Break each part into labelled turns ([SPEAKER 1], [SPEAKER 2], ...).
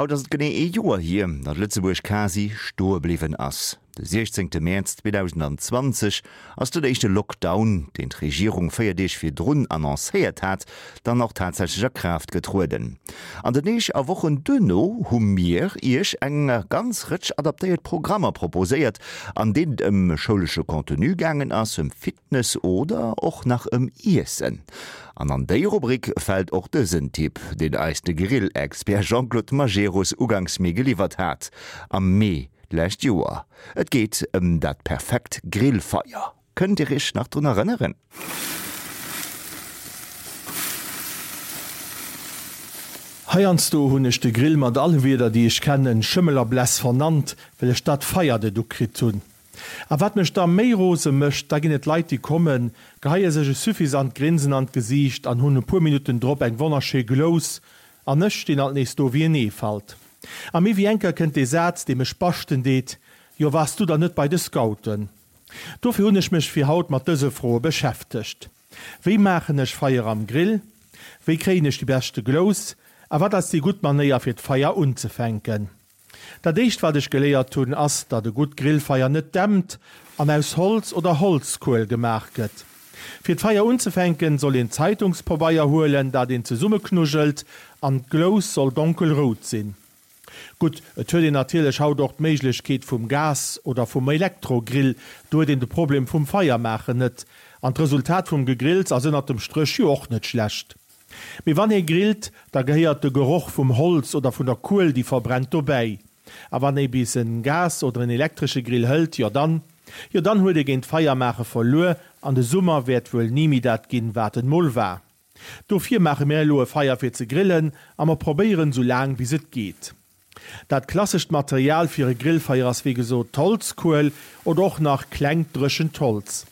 [SPEAKER 1] Haut ass et genee ee Joer hier, datt Lëtzebuerg quasi stoe bliwwen ass. De 16 Mäerz 2020 ass den éischte Lockdown, deen d'Regierung 4 Deeg virdrun annoncéiert hat, dann och tatsächlech a Kraaft getrueden. An den Deeg a Wochen duerno hu mir Iech eng ganz Rëtsch adaptéiert Programmer proposéiert, an deenen et ëm schoulesche Contenu gaangen ass, ëm Fitness oder och nach ëm Iessen. An an déi Rubrik fält och dësen Tipp, deen eis de Grill-Expert Jean-Claude Majerus uganks Mee geliwwert hat, am Mee d'lescht Joer. Et geet ëm dat perfekt Grillfeier. Kënnt Dir Iech nach drun erënneren?
[SPEAKER 2] Heiansdo hunn ech de Grill mat alle Wierder déi ech kennen, Schëmmel a Bless vernannt, well ech dat Feier net ukritt hunn. A wat mech da méi rose mécht, da ginn et Leit déi kommen, geheie sech e suffisant Grinsen an d'Gesiicht an hunn e puer Minutten drop eng wonnerschéi Glous, an ech stinn alt nees do wéi en Eefalt. A méi wéi eng Kéier kënnt dee Saz dee mech baschten deet, Jo waars du dann net bei de Scouten? Dofir hunn ech mech fir haut mat dëse Froe beschäftegt, Wéi maachen ech Feier am Grill? Wéi kréien ech déi beschte Glous? A wat ass déi gutt Manéier fir d'Feier unzefänken? Dat éischt wat ech geléiert hunn ass, datt e gutt Grillfeier net dämpt an aus Holz oder Holzkuel gemaach gëtt. Fir d'Feier unzefänken soll een Zeitungspobeier huelen, dat een zesummeknujelt an d'Glous soll donkelrout sinn. Gutt, et huet een natierlech haut och d'Méiglechkeet vum Gas oder vum Elektrogrill, do huet een de Problem vum Feiermaachen net. An d'Resultat vum Gegrills ass ënnert dem Stréch jo och net schlecht. Mee wann ee grillt, da gehéiert de Geroch vum Holz oder vun der Kuel déi verbrennt dobäi. A wann ee bis en Gas oder en elektresche Grill hëlt, jo dann, jo dann huet ee géint d'Feiermaache verluer an de Summer wäert wuel ni méi dat ginn, wat en mol war. Dofir maache mir elo e Feier fir ze grillen a mer probéieren sou laang bis et geet. Dat klassescht Material fir e Grillfeier ass wéi gesot d'Holzkuel oder och nach klengt dréchent Holz.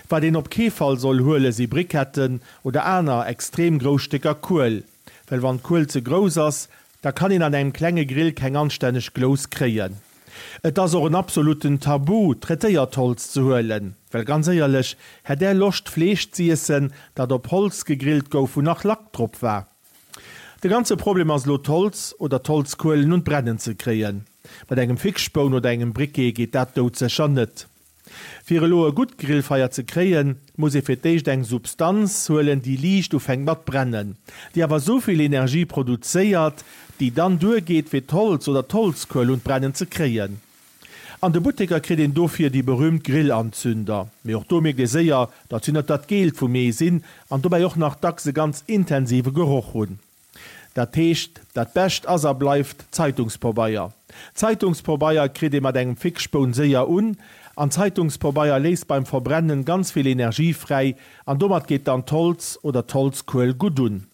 [SPEAKER 2] Wat een op kee Fall soll huele si Briketten oder aner extrem grouss Stécker Kuel, well wann d'Kuel ze grouss ass, da kann een an engem klenge Grill keng anstänneg Glous kréien. Et ass och en absoluten Tabu, traitéiert Holz ze huelen, well ganz éierlech, hätt Är Loscht Fleesch z'iessen, dat op Holz gegrillt gouf, wou nach Lack drop war? De ganze Problem ass elo d'Holz oder d'Holzkuelen un d'Brennen ze kréien. Mat engem Fixspoun oder engem Briquet geet dat doudsécher net. Fir elo e gutt Grillfeier ze kréien, muss ee fir d'éischt eng Substanz huelen, déi liicht ufänkt mat brennen, déi awer souvill Energie produzéiert, déi dann duergeet fir d'Holz oder d'Holzkuel un d'Brennen ze kréien. An de Butteker kritt een dofir déi berühmt Grillanzünder, mee och do mierkt ee séier, datt si net dat Geelt vum Ee sinn an dobäi och nach dacks e ganz intensive Geroch hunn. Dat heescht, dat Bescht ass a bleift Zeitungspobeier. Zeitungspobeier kritt ee mat engem Fixspoun séier un, an Zeitungspobeier léisst beim Verbrennen ganz vill Energie fräi, an domat geet dann d'Holz oder d'Holzkuel gutt un.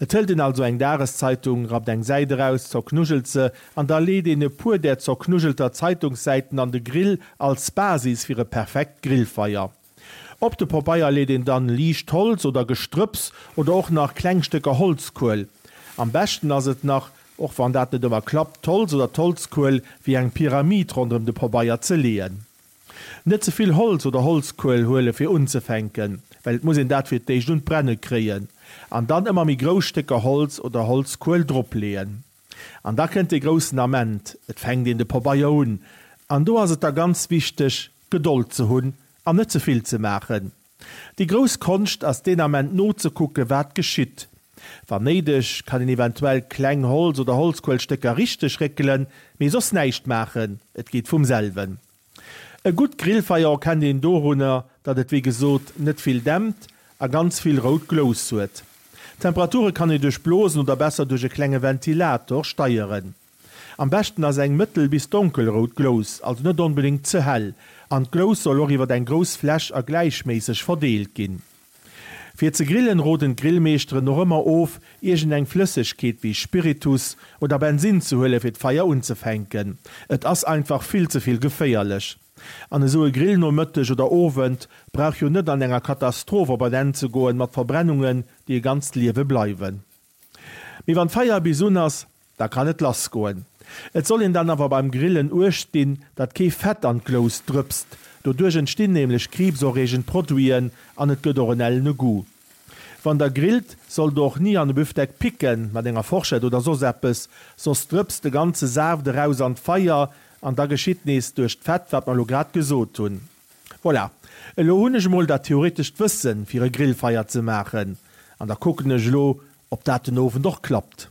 [SPEAKER 2] Et hëlt een also eng Dageszeitung, rappt eng Säit eraus, zerknujelt se, an da leet een e puer där zerknujelter Zeitungssäiten an de Grill als Basis fir e perfekt Grillfeier. Op de Pobeier leet een dann liicht Holz oder Gestrëpps oder och nach kleng Stécker Holzkuel. Am beschten ass et nach, och wann dat net ëmmer klappt, d'Holz oder d'Holzkuel wéi eng Pyramid ronderëm de Pobeier ze leeën. Net ze vill Holz oder Holzkuel huele fir unzefänken, well et muss een dat fir d'éischt un d'Brenne kréien an dann ëmmer méi grouss Stécker Holz oder Holzkuel drop leeën. An da kënnt dee groussen Ament, et fänkt een de Pobeier un. An do ass et da ganz wichteg, Gedold ze hunn an net ze vill ze maachen. Déi grouss Konscht ass deen Ament nozekucken, wat geschitt. Wann néideg, kann een eventuell kleng Holz oder Holzkuelstécker richteg réckelen, mee soss näischt maachen, et geet vum selwen. E gutt Grillfeier erkennt een dorunner, datt et wéi gesot net vill dämpt a ganz vill rout Glous huet. D'Temperature kann ee duerch Blosen oder besser duerch e klenge Ventilator steieren. Am beschten ass eng mëttel bis donkelrout Glous, also net onbedéngt ze hell, an d'Glous soll och iwwer eng grouss Fläch a gläichméisseg verdeelt ginn. Fir ze grillen roden d'Grillmeeschteren och ëmmer of, iergend eng Flëssegkeet wéi Spiritus oder Bensin ze huelen fir d'Feier unzefänken. Et ass einfach vill ze vill geféierlech. An esou e Grillnomëtteg oder Owend brauch jo net an enger Katastroph op en Enn ze goen mat Verbrennungen déi e ganzt Liewe bleiwen. Mee wann d'Feier bis un ass, Da kann et lass goen. Et soll een dann awer beim Grillen uecht dinn, datt kee Fett an d'Glous drëpst. Doduerch entstinn nämlech kriibserreegend Produiten an et gëtt och en ellene Goût. Wann der grillt, sollt der och ni an e Büfdeck picken, mat enger Forschett oder soss eppes, soss drëpst de ganze Saaft eraus an d'Feier an da geschitt nees duerch d'Fett, wat mer elo grad gesot hunn. Voilà, elo hunn ech emol dat theoretescht Wëssen, fir e Grillfeier ze maachen an da kucken ech elo, ob dat den Owend och klappt.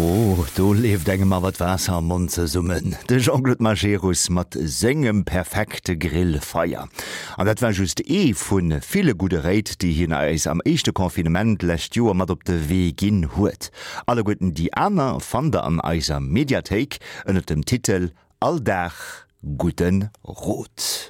[SPEAKER 1] Oh, do leeft engem awer d'Waasser am Mond zesummen. De Jean-Claude Majerus mat sengem perfekte Grillfeier. An dat war just ee vu ville gudde Réit, déi hien eis am éischte Confinement d'lescht Joer mat op de Wee ginn huet. Alleguerten déi aner fannt der an eiser Mediathéik ënnert dem Titel All Dag gudde Rot.